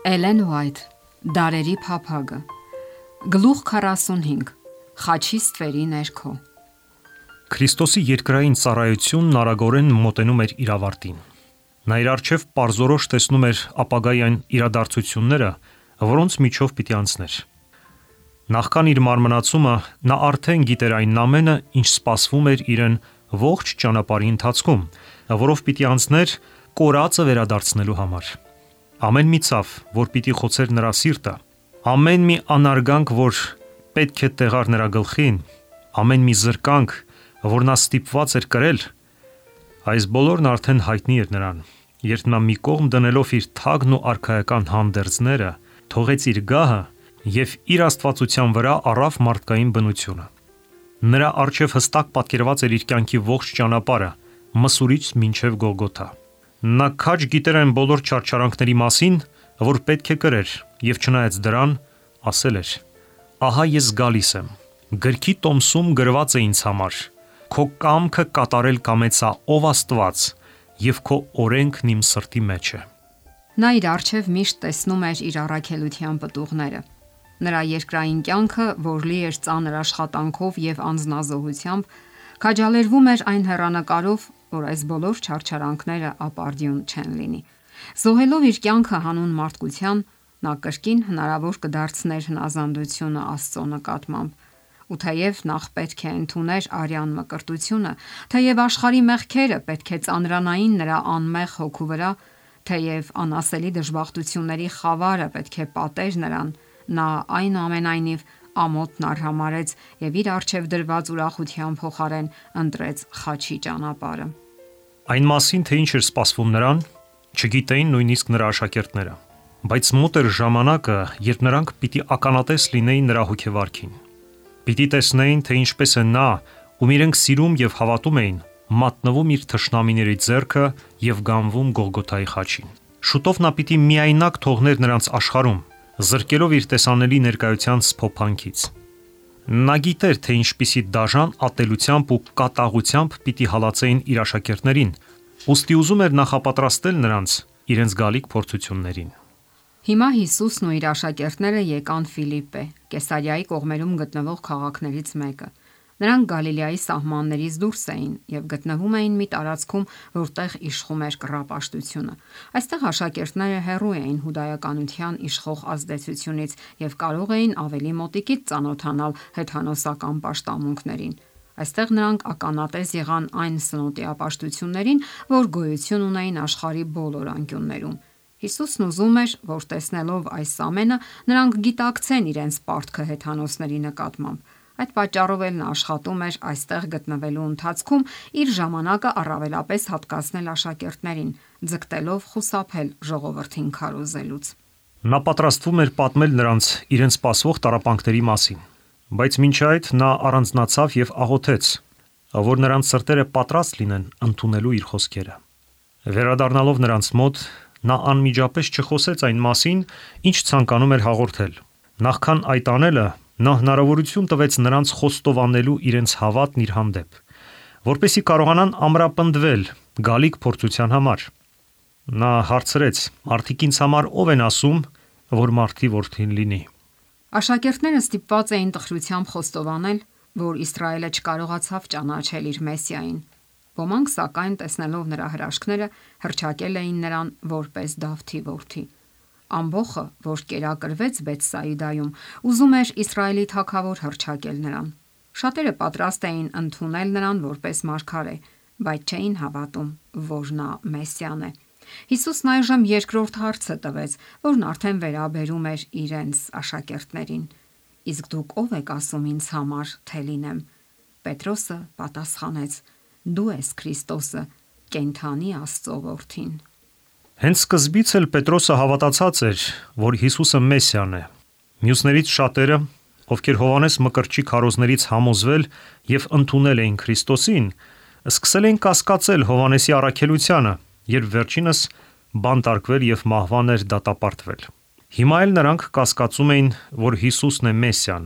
Էլեն Ուայթ, Դարերի փափագը, Գլուխ 45, Խաչի ստվերի ներքո։ Քրիստոսի երկրային ծառայությունն արագորեն մոտենում էր իր ավարտին։ Նա իր առջև պարզորոշ տեսնում էր ապագայի այն իրադարձությունները, որոնց միջով պիտի անցներ։ Նախքան իր մարմնացումը նա արդեն գիտեր այն ամենը, ինչ սպասվում էր իրեն ողջ ճանապարհի ընթացքում, որով պիտի անցներ կորածը վերադարձնելու համար։ Ամեն մի ցավ, որ պիտի խոցեր նրա սիրտը, ամեն մի անարգանք, որ պետք է տեղար նրա գլխին, ամեն մի զրկանք, որ նա ստիպված էր կրել, այս բոլորն արդեն հայտնի էր նրան, երբ նա մի կողմ դնելով իր թագն ու արքայական հանդերձները, թողեց իր գահը եւ իր աստվածության վրա առավ մարդկային բնությունը։ Նրա առջև հստակ պատկերված էր իր կյանքի ողջ ճանապարհը, Մսուրից մինչև Գողգոթա։ Նա քաջ գիտեր այն բոլոր չարչարանքների մասին, որ պետք է կրեր, եւ չնայած դրան, ասել էր. «Ահա ես գալիս եմ, գրքի տոմսում գրված է ինձ համար, քո կամքը կատարել կամեցա ով Աստված, եւ քո օրենքն իմ սրտի մեջ է»։ Նա իր առջև միշտ տեսնում էր իր առաքելության պտուղները։ Նրա երկրային կյանքը, որ լի էր ծանր աշխատանքով եւ անձնազոհությամբ, քաջալերվում էր այն հեռանկարով, որ այս բոլոր չարչարանքները ապարդյուն չեն լինի։ Զոհելով իր կյանքը հանուն մարդկության, նա կրկին հնարավոր կդարձներ հնազանդությունը Աստծո նկատմամբ։ Ու թեև նախ պետք է ընդուներ արյան մկրտությունը, թեև աշխարհի մեղքերը պետք է ծանրանային նրա անմեղ հոգու վրա, թեև անասելի դժբախտությունների խավարը պետք է պատեր նրան, նա այնուամենայնիվ ամոթն արհամարեց եւ իր առջև դրված ուրախության փոխարեն ընտրեց խաչի ճանապարհը։ Այն մասին, թե ինչ էր սպասվում նրան, չգիտեին նույնիսկ նրա աշակերտները, բայց մոտ էր ժամանակը, երբ նրանք պիտի ականատես լինեին նրա հոգեվարքին։ Պիտի տեսնեին, թե ինչպես է նա, ում իրենք սիրում եւ հավատում էին, մատնվում իր թշնամիների ձեռքը եւ գանվում Գողգոթայի խաչին։ Շուտով նա պիտի միայնակ թողներ նրանց աշխարհում, զրկելով իր տեսանելի ներկայության սփոփանքից։ Նա գիտեր, թե ինչպիսի դաժան ատելությամբ ու կատաղությամբ պիտի հալածեին իր աշակերտներին, ուստի ուզում էր նախապատրաստել նրանց իրենց գալիք փորձություններին։ Հիմա Հիսուսն ու իր աշակերտները եկան Ֆիլիպպե, Կեսարիայի կողմերում գտնվող քաղաքներից մեկը։ Նրանք Գալիլեայի սահմաններից դուրս էին եւ գտնվում էին մի տարածքում, որտեղ իշխում էր կռապաշտությունը։ Այստեղ աշակերտները հեռու էին հուդայականության իշխող ազդեցությունից եւ կարող էին ավելի մոտիկից ծանոթանալ հեթանոսական պաշտամունքներին։ Այստեղ նրանք ականատես եղան այն սնոտիապաշտություններին, որ գոյություն ունեին աշխարհի բոլոր անկյուններում։ Հիսուսն ուզում էր, որ տեսնելով այս ամենը, նրանք գիտակցեն իրենց պարտքը հեթանոսների նկատմամբ։ Այդ պատճառով էլ նա աշխատում էր այստեղ գտնվելու ընթացքում իր ժամանակը առավելապես հատկացնել աշակերտներին, ձգտելով խուսափել ժողովրդին քարոզելուց։ Նա պատրաստվում էր պատմել նրանց իրենց սպասվող տառապանքների մասին, բայց մինչ այդ նա առանձնացավ եւ աղոթեց, որ նրանց սրտերը պատրաստ լինեն ընդունելու իր խոսքերը։ Վերադառնալով նրանց մոտ, նա անմիջապես չխոսեց այն մասին, ինչ ցանկանում էր հաղորդել։ Նախքան այդ անելը, նա հնարավորություն տվեց նրանց խոստովանելու իրենց հավատն իր հանդեպ, որպեսզի կարողանան ամրապնդվել գալիք փորձության համար։ Նա հարցրեց. «Մարդիկ ինձ համար ով են ասում, որ մարդի որդին լինի»։ Աշակերտները ստիպված էին տխրությամբ խոստովանել, որ Իսրայելը չկարողացավ ճանաչել իր Մեսիային։ Ոմանք, սակայն, տեսնելով նրա հրաշքները, հռչակել էին նրան որպես Դավթի որդի։ Ամբոխը, որ կերակրվեց Բեթսայիդայում, ուզում էր Իսրայելի թագավոր հռչակել նրան։ Շատերը պատրաստ էին ընդունել նրան որպես մարգարե, բայց չէին հավատում, որ նա Մեսիան է։ Հիսուսն այժմ երկրորդ հարցը տվեց, որն արդեն վերաբերում էր իրենց աշակերտներին։ Իսկ դուք ով եք ասում ինձ համար, թե լինեմ։ Պետրոսը պատասխանեց. Դու ես Քրիստոսը, կենդանի Աստծո որդին։ Հենց սկզբից էլ Պետրոսը հավատացած էր, որ Հիսուսը Մեսիան է։ Մյուսներից շատերը, ովքեր Հովանես Մկրտչի քարոզներից համոզվել եւ ընդունել էին Քրիստոսին, սկսել են կասկածել Հովանեսի առաքելությանը, երբ վերջինս բանտարկվել եւ մահվան էր դատապարտվել։ Հիմա էլ նրանք կասկածում էին, որ Հիսուսն է Մեսիան,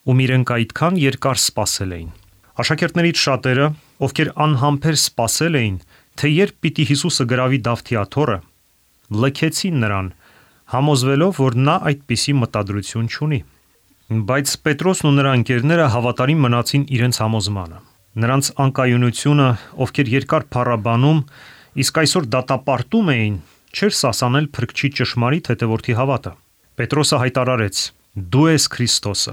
ում իրենք այդքան երկար սպասել էին։ Աշակերտներից շատերը, ովքեր անհամբեր սպասել էին, թե երբ պիտի Հիսուսը գրավի Դավթի աթոռը, լքեցին նրան, համոզվելով, որ նա այդպիսի մտադրություն չունի։ Բայց Պետրոսն ու նրա ընկերները հավատարիմ մնացին իրենց համոզմանը։ Նրանց անկայունությունը, ովքեր երկար փառաբանում, իսկ այսօր դատապարտում էին, չէր սասանել Փրկչի ճշմարիտ հետևորդի հավատը։ Պետրոսը հայտարարեց. «Դու ես Քրիստոսը,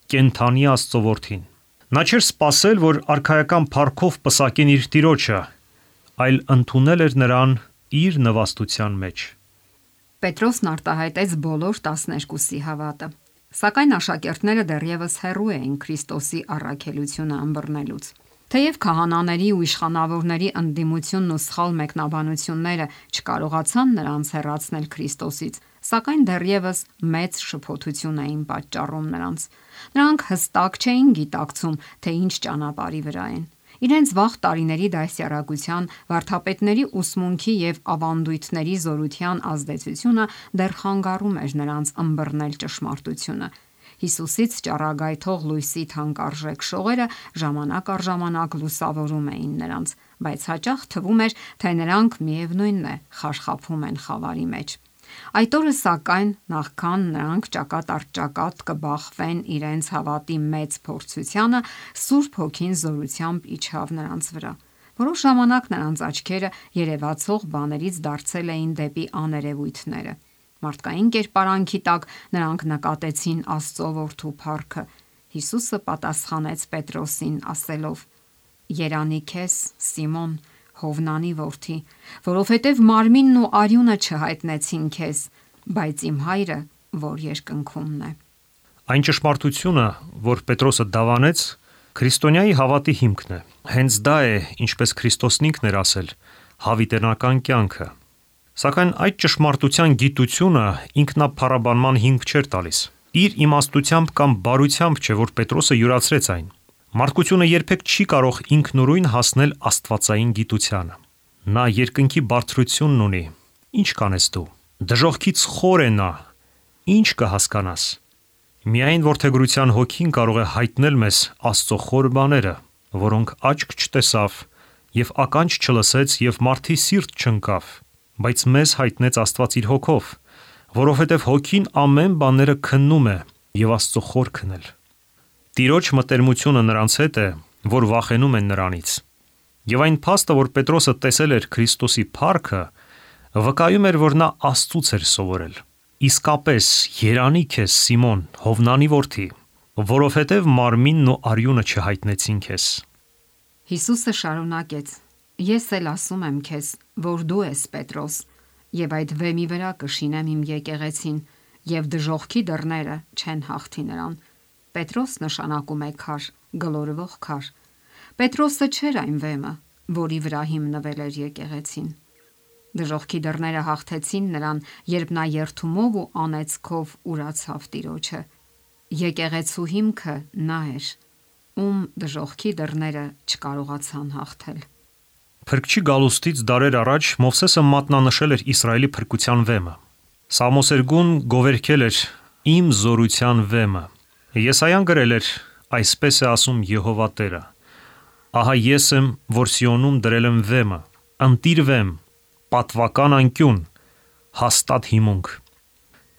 կենդանի Աստծո Որդին»։ Նա չէր սպասել, որ արքայական փառքով պսակեն իր տիրոջը, այլ ընդունել էր նրան իր նվաստության մեջ։ Պետրոսն արտահայտեց բոլոր 12-ի հավատը, սակայն աշակերտները դեռևս հեռու էին Քրիստոսի առաքելությունը ըմբռնելուց։ Թեև քահանաների ու իշխանավորների ընդդիմությունն ու սխալ մեկնաբանությունները չկարողացան նրանց հեռացնել Քրիստոսից, սակայն դեռևս մեծ շփոթություն էին պատճառում նրանց։ Նրանք հստակ չէին գիտակցում, թե ինչ ճանապարհի վրա են։ Իրենց վաղ տարիների դասյարակության, վարդապետների ուսմունքի եւ ավանդույթների զորության ազդեցությունը դեռ խանգարում էր նրանց ըմբռնել ճշմարտությունը։ Հիսուսից ճառագայթող լույսի թանկարժեք շողերը ժամանակ առ ժամանակ լուսավորում էին նրանց, բայց հաճախ թվում էր, թե նրանք միևնույնն է խարխափում են խավարի մեջ։ Այդ օրը սակայն, նախքան նրանք ճակատ առ ճակատ կբախվեն իրենց հավատի մեծ փորձությանը, Սուրբ Հոգին զորությամբ իջավ նրանց վրա։ Որոշ ժամանակ նրանց աչքերը երևացող բաներից դարձել էին դեպի աներևույթները։ Մարդկային կերպարանքի տակ նրանք նկատեցին Աստծո Որդու փառքը։ Հիսուսը պատասխանեց Պետրոսին ասելով. «Երանի քեզ, Սիմոն, Հովնանի որդի, որովհետև մարմինն ու արյունը չհայտնեցին քեզ, բայց իմ հայրը, որ երկնքումն է»։ Այն ճշմարտությունը, որ Պետրոսը դավանեց, քրիստոնյայի հավատի հիմքն է։ Հենց դա է, ինչպես Քրիստոսն ինքն էր ասել, հավիտենական կյանքը։ Սակայն այդ ճշմարտության գիտությունը ինքնափառաբանման հիմք չէր տալիս։ Իր իմաստությամբ կամ բարությամբ չէ, որ Պետրոսը յուրացրեց այն։ Մարդկությունը երբեք չի կարող ինքնուրույն հասնել աստվածային գիտությանը։ Նա երկնքի բարձրությունն ունի։ Ինչ կանես դու։ Դժոխքից խոր է նա։ Ինչ կհասկանաս։ Միայն որդեգրության հոգին կարող է հայտնել մեզ Աստծո խոր բաները, որոնք աչք չտեսավ եւ ականջ չլսեց եւ մարդի սիրտ չընկավ, բայց մեզ հայտնեց Աստված իր հոգով, որովհետեւ հոգին ամեն բաները քննում է եւ Աստծո խորքն էլ։ Տիրոջ մտերմությունը նրանց հետ է, որ վախենում են նրանից։ Եվ այն փաստը, որ Պետրոսը տեսել էր Քրիստոսի փառքը, վկայում էր, որ նա Աստծուց էր սովորել։ Իսկապես, երանի քեզ, Սիմոն, Հովնանի որդի, որովհետև մարմինն ու արյունը չհայտնեցին քեզ։ Հիսուսը շարունակեց. «Ես էլ ասում եմ քեզ, որ դու ես Պետրոս, եւ այդ վեմի վրա կշինեմ իմ եկեղեցին, եւ դժոխքի դռները չեն հաղթի նրան»։ Պետրոս նշանակում է քար, գլորվող քար։ Պետրոսը չէր այն վեմը, որի վրա հիմնվել էր եկեղեցին։ Դժոխքի դռները հաղթեցին նրան, երբ նա երդումով ու անեծքով ուրացավ Տիրոջը։ Եկեղեցու հիմքը նա էր, ում դժոխքի դռները չկարողացան հաղթել։ Փրկչի գալուստից դարեր առաջ Մովսեսը մատնանշել էր Իսրայելի փրկության վեմը։ Սամոսերգուն գովերքել էր «Իմ զորության վեմը»։ Եսայան գրել էր. «Այսպես է ասում Եհովա Տերը. ահա ես եմ, որ Սիոնում դրել եմ վեմը, ընտիր վեմ, պատվական անկյուն, հաստատ հիմունք»։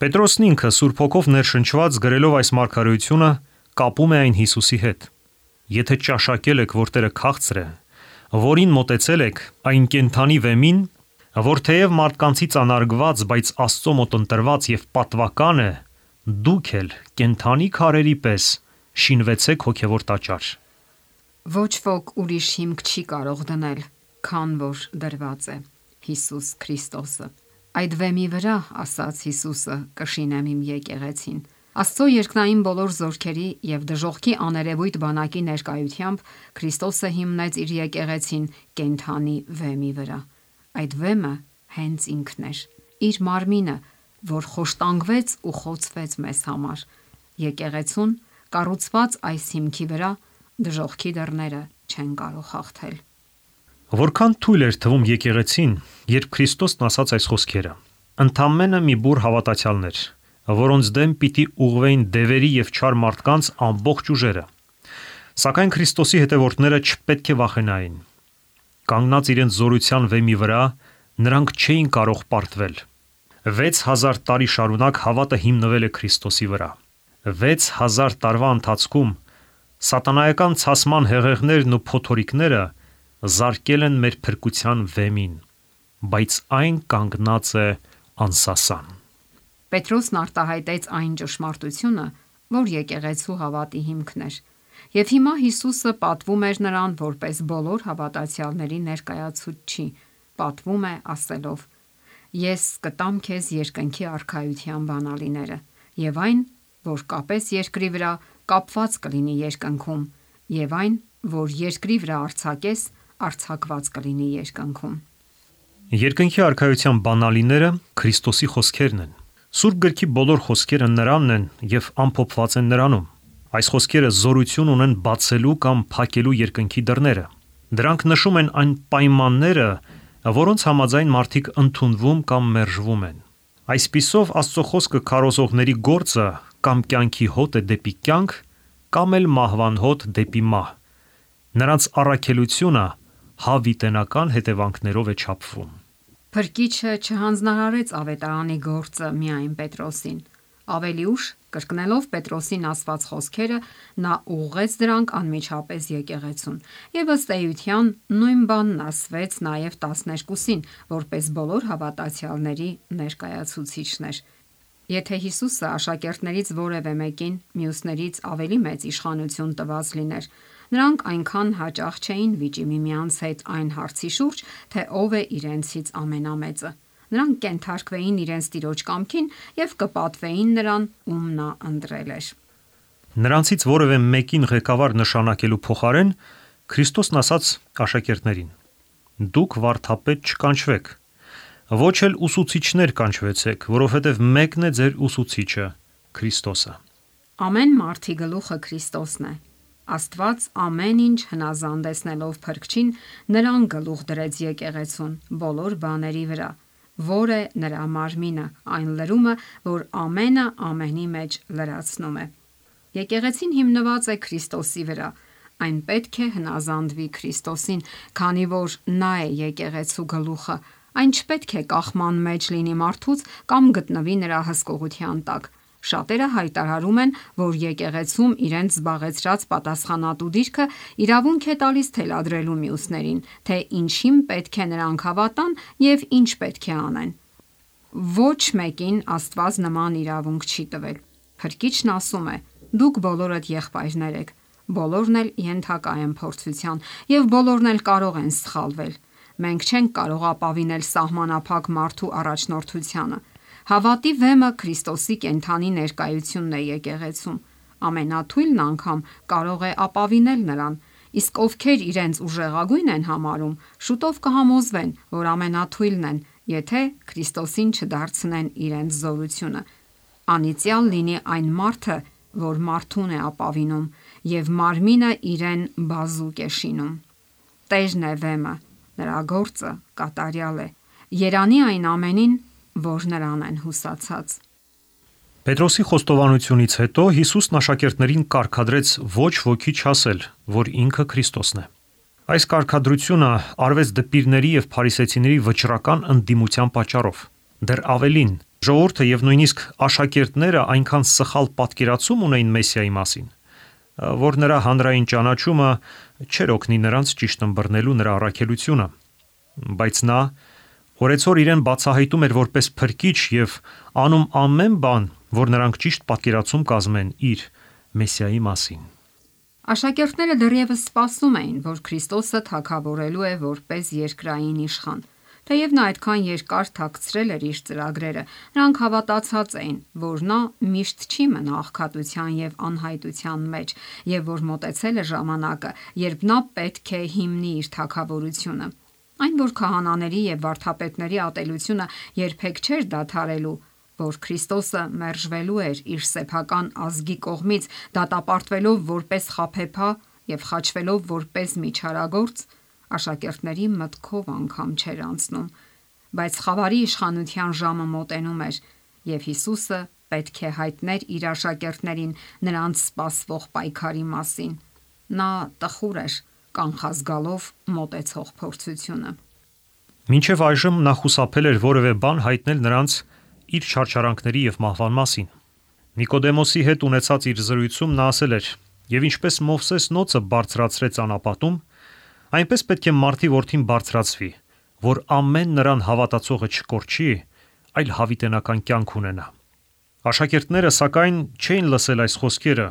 Պետրոսն ինքը Սուրբ Հոգով ներշնչված գրելով այս մարգարեությունը կապում է այն Հիսուսի հետ։ Եթե ճաշակել եք, որ Տերը քաղցր է, որին մոտեցել եք, այն կենդանի վեմին, որ թեև մարդկանցից անարգված, բայց Աստծո մոտ ընտրված եւ պատվական է, դուք էլ կենդանի քարերի պես շինվեցեք հոգևոր տաճար։ Ոչ ոք ուրիշ հիմք չի կարող դնել, քան որ դրված է Հիսուս Քրիստոսը։ Այդ վեմի վրա, ասաց Հիսուսը, կշինեմ իմ եկեղեցին։ Աստծո երկնային բոլոր զորքերի եւ դժոխքի աներևույթ բանակի ներկայությամբ Քրիստոսը հիմնեց իր եկեղեցին կենդանի վեմի վրա։ Այդ վեմը հենց ինքն էր, իր մարմինը, որ խոշտանգվեց ու խոցվեց մեզ համար։ Եկեղեցուն կառուցված այս հիմքի վրա դժոխքի դռները չեն կարող հաղթել։ Որքան թույլ էր թվում եկեղեցին, երբ Քրիստոսն ասաց այս խոսքերը։ Ընդամենը մի բուռ հավատացյալներ, որոնց դեմ պիտի ուղղվեին դևերի եւ չար մարդկանց ամբողջ ուժերը։ Սակայն Քրիստոսի հետևորդները չպետք է վախենային։ Կանգնած իրենց զորության վեմի վրա, նրանք չէին կարող պարտվել։ 6000 տարի շարունակ հավատը հիմնվել է Քրիստոսի վրա։ 6000 տարվա ընթացքում սատանայական ցասման հեղեղներն ու փոթորիկները զարկել են մեր փրկության վեմին, բայց այն կանգնած է անսասան։ Պետրոսն արտահայտեց այն ճշմարտությունը, որ եկեղեցու հավատի հիմքն էր, եւ հիմա Հիսուսը պատվում էր նրան որպես բոլոր հավատացյալների ներկայացուցիչ, պատվում է ասելով. «Ես կտամ քեզ երկնքի արքայության բանալիները, եւ այն, որ կապես երկրի վրա, կապված կլինի երկնքում, եւ այն, որ երկրի վրա արձակես, արձակված կլինի երկնքում»։ Երկնքի արքայության բանալիները Քրիստոսի խոսքերն են։ Սուրբ գրքի բոլոր խոսքերը նրանն են եւ ամփոփված են նրանում։ Այս խոսքերը զորություն ունեն բացելու կամ փակելու երկնքի դռները։ Դրանք նշում են այն պայմանները, որոնց համաձայն մարդիկ ընդունվում կամ մերժվում են։ Այսպիսով Աստծո խոսքը քարոզողների գործը կամ կյանքի հոտ է դեպի կյանք, կամ էլ մահվան հոտ դեպի մահ։ Նրանց առաքելությունը հավիտենական հետևանքներով է չափվում։ Փրկիչը չհանձնարարեց ավետարանի գործը միայն Պետրոսին։ Ավելի ուշ, կրկնելով Պետրոսին ասված խոսքերը, նա ուղղեց դրանք անմիջապես եկեղեցուն։ Եվ ըստ էության նույն բանն ասվեց նաև 12-ին, որպես բոլոր հավատացյալների ներկայացուցիչն էր։ Եթե Հիսուսը աշակերտներից որևէ մեկին մյուսներից ավելի մեծ իշխանություն տված լիներ, նրանք այնքան հաճախ չէին վիճի միմյանց հետ այն հարցի շուրջ, թե ով է իրենցից ամենամեծը։ Նրանք կենթարկվեին իրենց տիրոջ կամքին եւ կպատվեին նրան, ում նա ընտրել էր։ Նրանցից որևէ մեկին ղեկավար նշանակելու փոխարեն Քրիստոսն ասաց աշակերտներին. «Դուք վարդապետ չկանչվեք, ոչ էլ ուսուցիչներ կանչվեցեք, որովհետև մեկն է ձեր ուսուցիչը, Քրիստոսը»։ Ամեն մարդի գլուխը Քրիստոսն է։ Աստված ամեն ինչ հնազանդեցնելով Փրկչին, նրան գլուխ դրեց եկեղեցուն բոլոր բաների վրա, որ է նրա մարմինը, այն լրումը, որ ամենը ամենի մեջ լրացնում է։ Եկեղեցին հիմնված է Քրիստոսի վրա։ Այն պետք է հնազանդվի Քրիստոսին, քանի որ նա է եկեղեցու գլուխը։ Այն չպետք է կախման մեջ լինի մարդուց կամ գտնվի նրա հսկողության տակ։ Շատերը հայտարարում են, որ եկեղեցում իրենց զբաղեցրած պատասխանատու դիրքը իրավունք է տալիս թելադրելու մյուսներին, թե ինչին պետք է նրանք հավատան եւ ինչ պետք է անեն։ Ոչ մեկին Աստված նման իրավունք չի տվել։ Փրկիչն ասում է. «Դուք բոլորդ եղբայրներ եք, բոլորն էլ ենթակա են փորձության եւ բոլորն էլ կարող են սխալվել։ Մենք չենք կարող ապավինել սահմանափակ մարդու առաջնորդությանը։ Հավատի վեմը Քրիստոսի կենդանի ներկայությունն է եկեղեցում։ Ամենաթույլն անգամ կարող է ապավինել նրան, իսկ ովքեր իրենց ուժեղագույն են համարում, շուտով կհամոզվեն, որ ամենաթույլն են, եթե Քրիստոսին չդարձնեն իրենց զորությունը։ Անիծյալ լինի այն մարդը, որ մարդուն է ապավինում եւ մարմինը իրեն բազուկ է շինում։ Տերն է վեմը, նրա գործը կատարյալ է։ Երանի այն ամենին, որ նրան են հուսացած։ Պետրոսի խոստովանությունից հետո Հիսուսն աշակերտներին կարգադրեց ոչ ոքի չասել, որ ինքը Քրիստոսն է։ Այս կարգադրությունը արվեց դպիրների եւ փարիսեցիների վճռական ընդդիմության պատճառով։ Դեռ ավելին, ժողովուրդը եւ նույնիսկ աշակերտները այնքան սխալ պատկերացում ունեին Մեսիայի մասին, որ նրա հանրային ճանաչումը չէր օգնի նրանց ճիշտ ըմբռնելու նրա առաքելությունը։ Բայց նա օրեցօր իրեն բացահայտում էր որպես փրկիչ եւ անում ամեն բան, որ նրանք ճիշտ պատկերացում կազմեն իր Մեսիայի մասին։ Աշակերտները դեռևս սպասում էին, որ Քրիստոսը թագավորելու է որպես երկրային իշխան։ Թեև նա այդքան երկար թաքցրել էր իր ծրագրերը, նրանք հավատացած էին, որ նա միշտ չի մնա աղքատության եւ անհայտության մեջ, եւ որ մոտեցել է ժամանակը, երբ նա պետք է հիմնի իր թագավորությունը։ Այն, որ քահանաների եւ վարդապետների ատելությունը երբեք չէր դադարելու, որ Քրիստոսը մերժվելու էր իր սեփական ազգի կողմից, դատապարտվելով որպես խաբեբա եւ խաչվելով որպես միջարագործ, աշակերտների մտքով անգամ չէր անցնում, բայց խավարի իշխանության ժամը մոտենում էր, եւ Հիսուսը պետք է հայտներ իր աշակերտներին նրանց սպասվող պայքարի մասին։ Նա տխուր էր կանխազգալով մոտեցող փորձությունը։ Մինչև այժմ նա խուսափել էր որևէ բան հայտնել նրանց իր չարչարանքների եւ մահվան մասին։ Նիկոդեմոսի հետ ունեցած իր զրույցում նա ասել էր. «Եվ ինչպես Մովսես նոցը բարձրացրեց անապատում, այնպես պետք է մարդի որդին բարձրացվի, որ ամեն նրան հավատացողը չկորչի, այլ հավիտենական կյանք ունենա»։ Աշակերտները սակայն չէին լսել այս խոսքերը,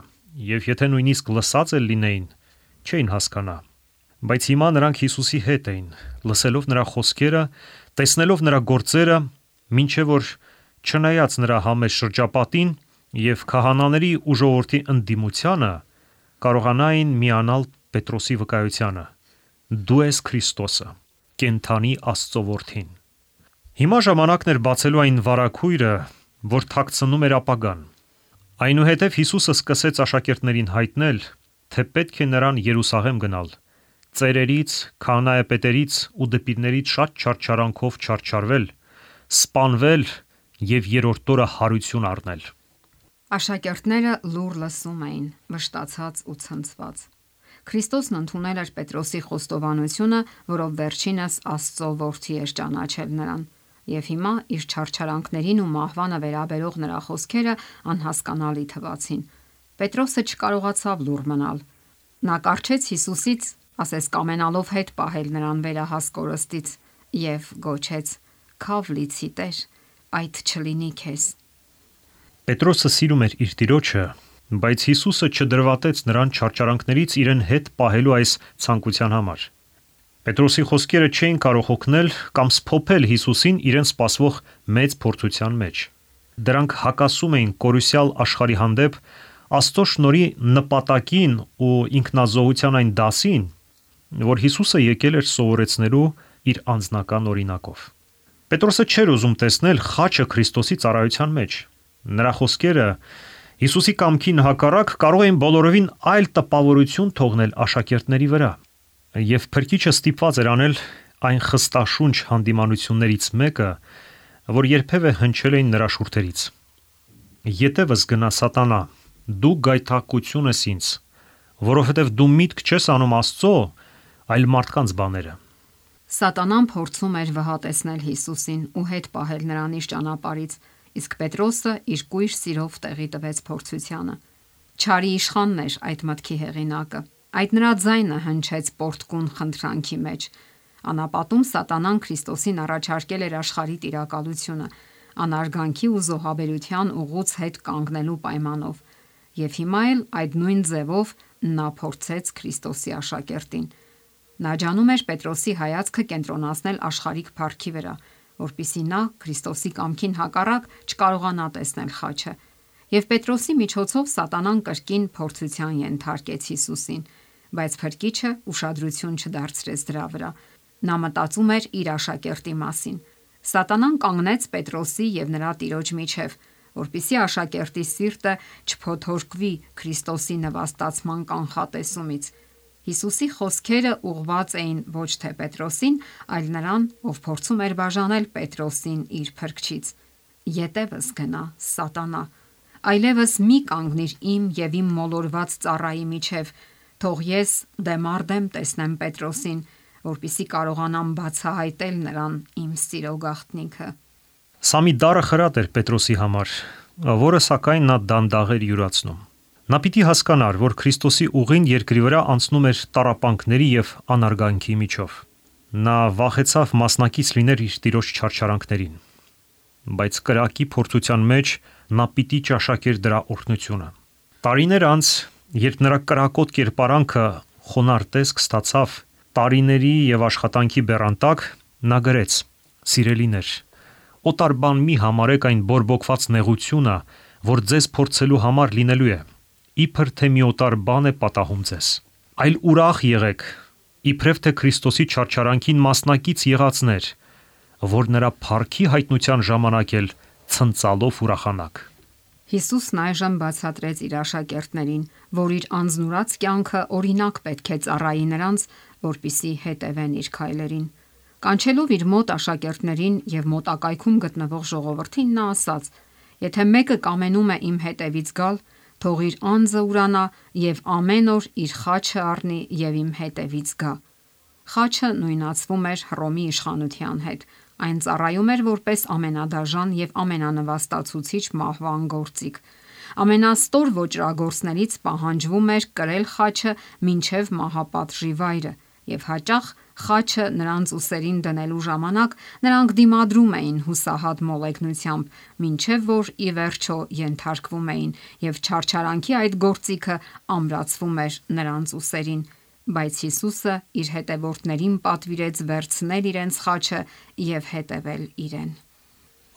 եւ եթե նույնիսկ լսած էլ լինեին, չէին հասկանա։ Բայց հիմա նրանք Հիսուսի հետ էին, լսելով նրա խոսքերը, տեսնելով նրա գործերը, մինչև որ չնայած նրա համեստ շրջապատին եւ քահանաների ու ժողովրդի ընդդիմությանը, կարողանային միանալ Պետրոսի վկայությանը. «Դու ես Քրիստոսը, կենդանի Աստծո որդին»։ Հիմա ժամանակն էր բացելու այն վարագույրը, որ թաքցնում էր ապագան։ Այնուհետև Հիսուսը սկսեց աշակերտներին հայտնել, թե պետք է նրան Երուսաղեմ գնալ, ծերերից, քահանայապետերից ու դպիրներից շատ չարչարանքով չարչարվել, սպանվել եւ երրորդ օրը հարություն առնել։ Աշակերտները լուր լսում էին, վշտացած ու ցնցված։ Քրիստոսն ընդունել էր Պետրոսի խոստովանությունը, որով վերջինս Աստծո որդի էր ճանաչել նրան, եւ հիմա իր չարչարանքներին ու մահվանը վերաբերող նրա խոսքերը անհասկանալի թվացին։ Պետրոսը չկարողացավ լուռ մնալ։ Նա կառչեց Հիսուսից, ասես կամենալով հետ պահել նրան վերահաս կորստից, եւ գոչեց. «Քավ լիցի Տեր, այդ չլինի քեզ»։ Պետրոսը սիրում էր իր տիրոջը, բայց Հիսուսը չդրվատեց նրան չարչարանքներից իրեն հետ պահելու այս ցանկության համար։ Պետրոսի խոսքերը չէին կարող օգնել կամ սփոփել Հիսուսին իրեն սպասվող մեծ փորձության մեջ։ Դրանք հակասում էին կորուսյալ աշխարհի հանդեպ Աստծո շնորհի նպատակին ու ինքնազոհության այն դասին, որ Հիսուսը եկել էր սովորեցնելու իր անձնական օրինակով։ Պետրոսը չէր ուզում տեսնել խաչը Քրիստոսի ծառայության մեջ։ Նրա խոսքերը Հիսուսի կամքին հակառակ կարող էին բոլորովին այլ տպավորություն թողնել աշակերտների վրա։ Եվ Փրկիչը ստիպված էր անել այն խստաշունչ հանդիմանություններից մեկը, որ երբևէ հնչել էին նրա շուրթերից. «Ետևս գնա Սատանա, դու գայթակղություն ես ինձ, որովհետև դու միտք չես անում Աստծո, այլ մարդկանց բաները»։ Սատանան փորձում էր վհատեցնել Հիսուսին ու հետ պահել նրան իր ճանապարհից, իսկ Պետրոսը իր կույր սիրով տեղի տվեց փորձությանը։ Չարի իշխանն էր այդ մտքի հեղինակը։ Այդ նրա ձայնը հնչեց պորտկուն խնդրանքի մեջ։ Անապատում Սատանան Քրիստոսին առաջարկել էր աշխարհի տիրակալությունը, անարգանքի ու զոհաբերության ուղուց հետ կանգնելու պայմանով։ Եվ հիմա էլ այդ նույն ձևով նա փորձեց Քրիստոսի աշակերտին։ Նա ջանում էր Պետրոսի հայացքը կենտրոնացնել աշխարհիկ փառքի վրա, որpիսի նա Քրիստոսի կամքին հակառակ չկարողանա տեսնել խաչը։ Եվ Պետրոսի միջոցով Սատանան կրկին փորձության ենթարկեց Հիսուսին, բայց Փրկիչը ուշադրություն չդարձրեց դրա վրա։ Նա մտածում էր իր աշակերտի մասին։ Սատանան կանգնեց Պետրոսի եւ նրա տիրոջ միջև, որpիսի աշակերտի սիրտը չփոթորկվի Քրիստոսի նվաստացման կանխատեսումից։ Հիսուսի խոսքերը ուղղված էին ոչ թե Պետրոսին, այլ նրան, ով փորձում էր բաժանել Պետրոսին իր փրկչից։ «Ետևս գնա Սատանա, այլևս մի կանգնիր իմ եւ իմ մոլորված ծառայի միջև, թող ես դեմառդեմ տեսնեմ Պետրոսին, որpիսի կարողանամ բացահայտել նրան իմ սիրո գաղտնիքը»։ Սա մի դառը խրատ էր Պետրոսի համար, որը սակայն նա դանդաղ էր յուրացնում։ Նա պիտի հասկանար, որ Քրիստոսի ուղին երկրի վրա անցնում էր տառապանքների եւ անարգանքի միջով։ Նա վախեցավ մասնակից լինել իր տիրոջ չարչարանքներին, բայց կրակի փորձության մեջ նա պիտի ճաշակեր դրա օրհնությունը։ Տարիներ անց, երբ նրա կրակոտ կերպարանքը խոնարհ տեսք ստացավ տարիների եւ աշխատանքի բեռանտակ, նա գրեց. «Սիրելիներ, օտար բան մի համարեք այն բորբոքված նեղությունը, որ ձեզ փորձելու համար լինելու է, իբր թե մի օտար բան է պատահում ձեզ, այլ ուրախ եղեք, իբրև թե Քրիստոսի չարչարանքին մասնակից եղածներ, որ նրա փառքի հայտնության ժամանակ էլ ցնծալով ուրախանաք»։ Հիսուսն այժմ բացատրեց իր աշակերտներին, որ իր անձնուրաց կյանքը օրինակ պետք է ծառայի նրանց, որպիսի հետևեն իր քայլերին։ Կանչելով իր մոտ աշակերտներին եւ մոտակայքում գտնվող ժողովրդին, նա ասաց. «Եթե մեկը կամենում է իմ հետևից գալ, թող իր անձը ուրանա եւ ամեն օր իր խաչը առնի եւ իմ հետևից գա»։ Խաչը նույնացվում էր Հռոմի իշխանության հետ, Այն ծառայում էր որպես ամենադաժան եւ ամենանվաստացուցիչ մահվան գործիք։ Ամենաստոր ոճրագործներից պահանջվում էր կրել խաչը մինչև մահապատժի վայրը, եւ հաճախ խաչը նրանց ուսերին դնելու ժամանակ նրանք դիմադրում էին հուսահատ մոլեգնությամբ, մինչև որ ի վերջո ենթարկվում էին, եւ չարչարանքի այդ գործիքը ամրացվում էր նրանց ուսերին։ Բայց Հիսուսը իր հետևորդներին պատվիրեց վերցնել իրենց խաչը եւ հետևել իրեն։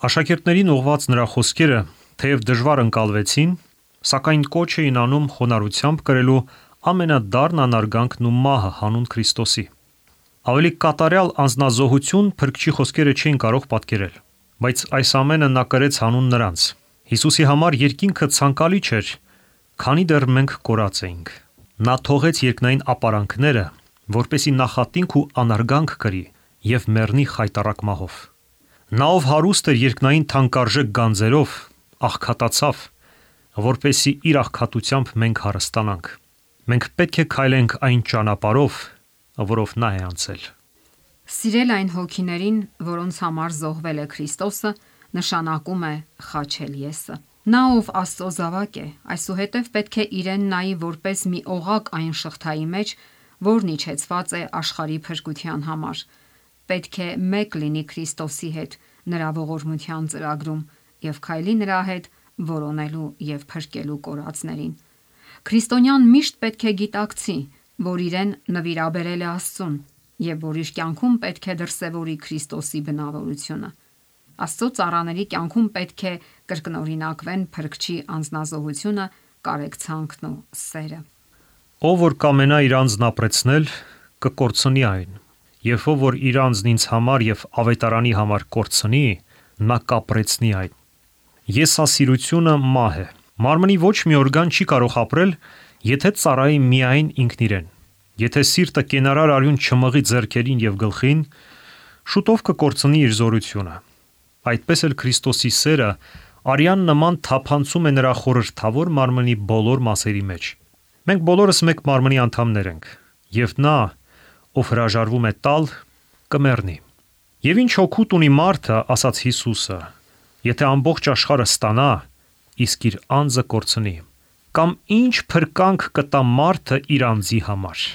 Աշակերտներին ուղղված նրա խոսքերը, թեև դժվար ընկալվեցին, սակայն կոչ էին անում խոնարհությամբ կրելու ամենադառն անարգանքն ու մահը հանուն Քրիստոսի։ Ավելի կատարյալ անձնազոհություն Փրկչի խոսքերը չէին կարող պատկերել, բայց այս ամենը նա կրեց հանուն նրանց։ Հիսուսի համար երկինքը ցանկալի չէր, քանի դեռ մենք կորած էինք։ Նա թողեց երկնային ապարանքները, որպեսի նախատինք ու անարգանք կրի եւ մեռնի խայտառակ մահով։ Նա, ով հարուստ էր երկնային թանկարժեք գանձերով, աղքատացավ, որպեսի իր աղքատությամբ մենք հարստանանք։ Մենք պետք է քայլենք այն ճանապարհով, որով նա է անցել։ Սիրել այն հոգիներին, որոնց համար զոհվել է Քրիստոսը, նշանակում է խաչել եսը։ Նա, ով Աստծո զավակ է, այսուհետև պետք է իրեն նայի որպես մի օղակ այն շղթայի մեջ, որն իջեցված է աշխարհի փրկության համար։ Պետք է մեկ լինի Քրիստոսի հետ նրա ողորմության ծրագրում եւ քայլի նրա հետ որոնելու եւ փրկելու կորածներին։ Քրիստոնյան միշտ պետք է գիտակցի, որ իրեն նվիրաբերել է Աստծուն եւ որ իր կյանքում պետք է դրսեւորի Քրիստոսի բնավորությունը։ Աստծո ծառաների կյանքում պետք է կրկնօրինակվեն Փրկչի անձնազոհությունը, կարեկցանքն ու սերը։ Ով որ կամենա իր անձն ապրեցնել, կկորցնի այն, եւ ով որ իր անձն ինձ համար եւ ավետարանի համար կորցնի, նա կապրեցնի այն։ Եսասիրությունը մահ է։ Մարմնի ոչ մի օրգան չի կարող ապրել, եթե ծառայի միայն ինքն իրեն։ Եթե սիրտը կենարար արյուն չմղի ձեռքերին եւ գլխին, շուտով կկորցնի իր զորությունը։ Այդպես էլ Քրիստոսի սերը արյան նման թափանցում է նրա խորհրդավոր մարմնի բոլոր մասերի մեջ։ Մենք բոլորս մեկ մարմնի անդամներ ենք, եւ նա, ով հրաժարվում է տալ, կմեռնի։ Եվ ինչ հոգուտ ունի մարդը, ասաց Հիսուսը, եթե ամբողջ աշխարհը ստանա, իսկ իր անձը կորցնի, կամ ինչ փրկանք կտա մարդը իր անձի համար։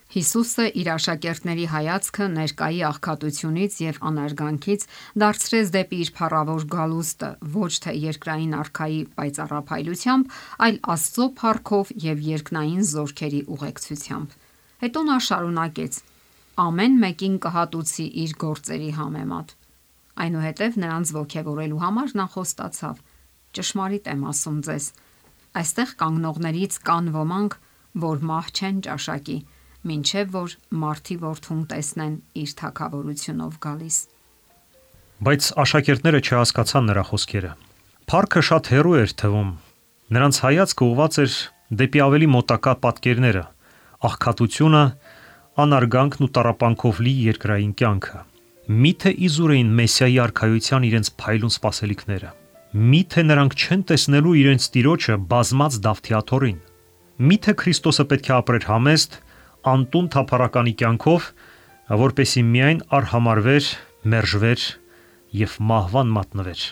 Հիսուսը իր աշակերտների հայացքը ներկայի աղքատությունից եւ անարգանքից դարձրեց դեպի իր փառավոր գալուստը, ոչ թե երկրային արքայի պայծառափայլությամբ, այլ Աստծո փառքով եւ երկնային զորքերի ուղեկցությամբ։ Հետո նա շարունակեց. ամեն մեկին կհատուցի իր գործերի համեմատ։ Այնուհետև նրանց ոգևորելու համար նա խոստացավ. ճշմարիտ եմ ասում ձեզ, այստեղ կանգնողներից կան ոմանք, որ մահ չեն ճաշակի, մինչև որ Մարդի Որդուն տեսնեն իր թագավորությունով գալիս։ Բայց աշակերտները չհասկացան նրա խոսքերը։ Փառքը շատ հեռու էր թվում։ Նրանց հայացքը ուղղված էր դեպի ավելի մոտակա պատկերները, աղքատությունը, անարգանքն ու տառապանքով լի երկրային կյանքը։ Միթե իզուր էին Մեսիայի արքայության իրենց փայլուն սպասելիքները։ Միթե նրանք չեն տեսնելու իրենց Տիրոջը բազմած Դավթիաթոռին։ Միթե Քրիստոսը պետք է ապրեր համեստ, անտուն թափառականի կյանքով, որպեսի միայն արհամարվեր, մերժվեր եւ մահվան մատնվեր։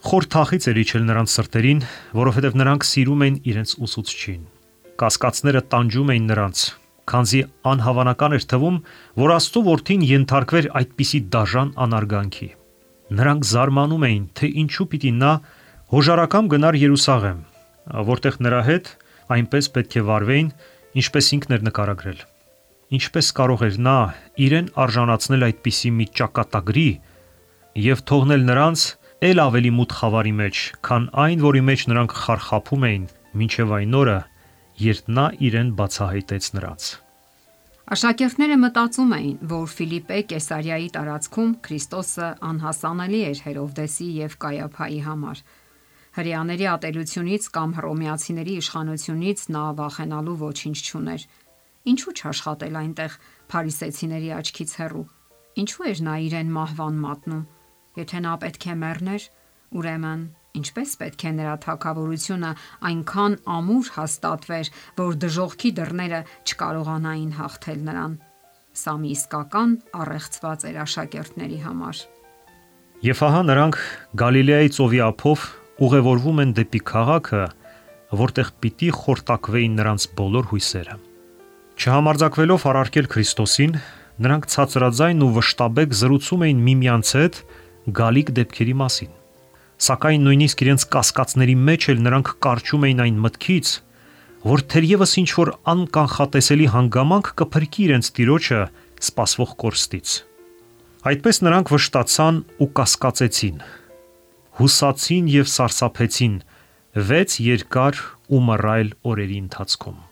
Խոր թախից էր իջել նրանց սրտերին, որովհետև նրանք սիրում էին իրենց ուսուցչին։ Կասկածները տանջում էին նրանց, քանզի անհավանական էր թվում, որ Աստծո որդին ենթարկվեր այդպիսի դաժան անարգանքի։ Նրանք զարմանում էին, թե ինչու պիտի նա հոժարակամ գնար Երուսաղեմ, որտեղ նրա հետ այնպես պետք է վարվեին, ինչպես ինքն էր նկարագրել։ Ինչպես կարող էր նա իրեն արժանացնել այդպիսի մի ճակատագրի եւ թողնել նրանց ել ավելի մութ խավարի մեջ, քան այն, որի մեջ նրանք խարխափում էին մինչև այն օրը, երբ նա իրեն բացահայտեց նրանց։ Աշակերտները մտածում էին, որ Ֆիլիպպե Կեսարիայի տարածքում Քրիստոսը անհասանելի էր Հերովդեսի եւ Կայափայի համար։ Հրեաների ատելությունից կամ հռոմեացիների իշխանությունից նա վախենալու ոչինչ չուներ։ Ինչու չաշխատել այնտեղ փարիսեցիների աչքից հեռու։ Ինչու էր նա իրեն մահվան մատնում։ Եթե նա պետք է մեռներ, ուրեմն ինչպես պետք է նրա թագավորությունը այնքան ամուր հաստատվեր, որ դժոխքի դռները չկարողանային հաղթել նրան։ Սա մի իսկական առեղծված էր աշակերտների համար։ Եվ ահա նրանք Գալիլեայի ծովի ափով ուղևորվում են դեպի քաղաքը, որտեղ պիտի խորտակվեին նրանց բոլոր հույսերը։ Չհամարձակվելով առարկել Քրիստոսին, նրանք ցածրաձայն ու վշտաբեկ զրուցում էին միմյանց հետ գալիք դեպքերի մասին։ Սակայն նույնիսկ իրենց կասկածների մեջ էլ նրանք կարճում էին այն մտքից, որ թերևս ինչ-որ անկանխատեսելի հանգամանք կփրկի իրենց տիրոջը սպասվող կորստից։ Այդպես նրանք վշտացան ու կասկածեցին, հուսացին և սարսափեցին 6 երկար ու մռայլ օրերի ընթացքում։